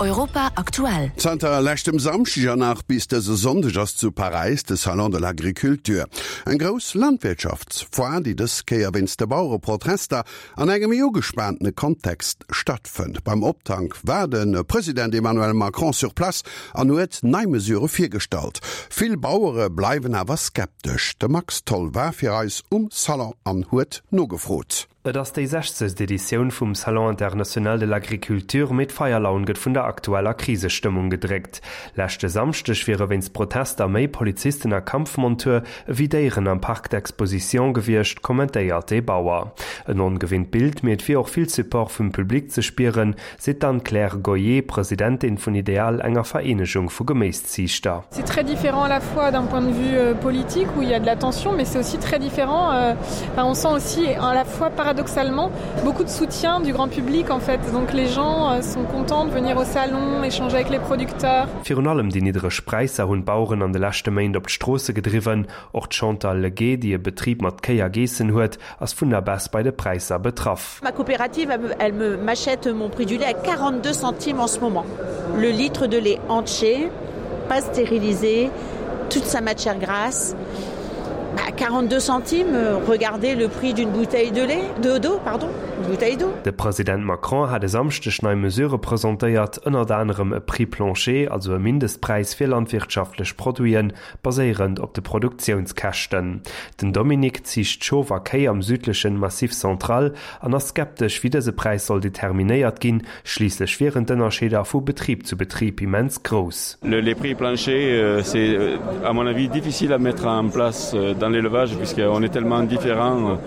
Europa aktuell. Zanter leschtem Samschdeg an nach bis dëse Sonndeg ass zu Paräis de Salon de l'Agriculture. Eng grouss Landwirtschaftsfoire, déi dës Kéier wéinst de Bauereprotester an engem méi ugespaantene Kontext stattfënnt. Beim Optank war de President Emmanuel Macron sur place an huet nei Mesurë virgestallt. Vill Bauere bleiwen awer skeptesch. De Max Tholl war fir eis um Salon an huet nogefrot. Et ass déi sechzegst Editioun vum Salon international de l'agriculture, mee d'Feierlaun gëtt vun der aktueller Krisestëmmung gedréckt. Leschte Samschdeg wiere wéinst Protester méi Polizisten a Kampfmontur ewéi Déieren am Parc d'exposition gewiescht, kommentéiert ee Bauer. En ongewinnt Bild, mee et wier och vill Support vum Public ze spieren, seet d'Anne-Claire Goyer, Presidentin vun Ideal, enger Vereenegung vu Geméisziichter. C'est très différent à la fois d'un point de vue euh, politique où il y a de la tension, mais c'est aussi très différent. Euh, enfin, on sent aussi à la fois paradoxalement beaucoup de soutien du grand public en fait. Donc les gens euh, sont contents de venir au salon, échanger avec les producteurs. Virun allem déi niddreg Präisser hunn d'Baueren an de leschte Méint op d'Stroosse gedriwwen. Och d'Chantal Leguet, déi e Betrib mat Kéi a Geessen huet, ass vun der Baisse bei de Präisser betraff. Ma coopérative elle me m'achète mon prix du lait à 42 centimes en ce moment. Le litre de lait entier, pas stérilisé, toute sa matière grasse à 42 centimes, regardez le prix d'une bouteille de lait de d'eau pardon, une bouteille d'eau. De President Macron hat e Samschdeg nei Mesurë presentéiert, ënnert anerem e Prix plancher, also e Mindestpräis fir landwirtschaftlech Produiten, baséierend op de Produktiounskäschten. Den Dominique ziicht Schof a Kéi am südlechen Massif Central an ass skeptesch, wéi dëse Präis soll determinéiert ginn, schliisslech wieren d'Ënnerscheeder vu Betrib zu Betrib immens grouss. Les prix planchers, c'est à mon avis difficile à mettre en place dans l'élevage puisqu'on est tellement différent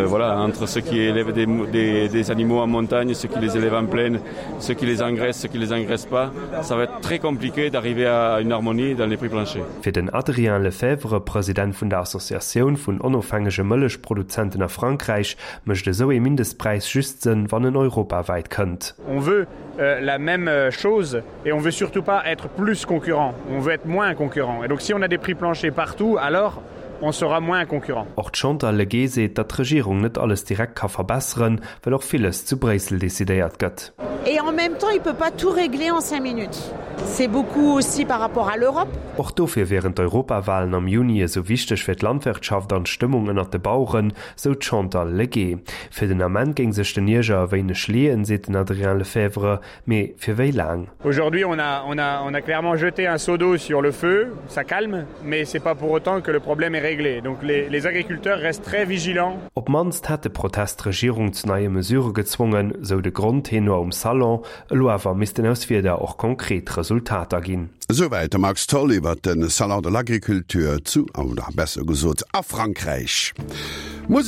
voilà, entre ceux qui élèvent des, des, des animaux en montagne, ceux qui les élèvent en plaine, ceux qui les engraissent, ceux qui les engraissent pas. Ça va être très compliqué d'arriver à une harmonie dans les prix planchers. Fir den Adrien Lefebvre, President vun der Associatioun vun onofhängege Mëllechproduzenten a Frankräich, mécht esou ee Mindestpräis just Sënn, wann en europawäit kënnt. On veut la même chose et on veut surtout pas être plus concurrent, on veut être moins concurrent. Et donc si on a des prix planchers partout, alors on sera moins concurrent. Och d'Chantal Legé seet, datt d'Regierung net alles direkt ka verbesseren, well och villes zu Bréissel decidéiert gëtt. Et en même temps, il peut pas tout régler en 5 minutes. C'est beaucoup aussi par rapport à l'Europe. Och dofir wieren d'Europawalen am Juni esou wichteg fir d'Landwirtschaft an d'Stëmmung ënnert de Baueren, sou d'Chantal Legé. Fir den Ament géing sech den Ierger e wéineg leeën, seet den Adrien Lefebvre, Mee fir wéi laang? Aujourd'hui on a, on a, on a clairement jeté un seau d'eau sur le feu, ça calme, mais c'est pas pour autant que le problème est réglé. Donc les, les agriculteurs restent très vigilants. Op d'mannst hätt de Protest d'Regierung zu neie Mesurë gezwongen, sou de Grondtenor um Salon. Elo awer missten aus Wierder och konkret Resultater ginn. Esouwäit de Max Tholl iwwer de Salon de l'Agriculture zu, oder besser gesot a Frankräich. Musek.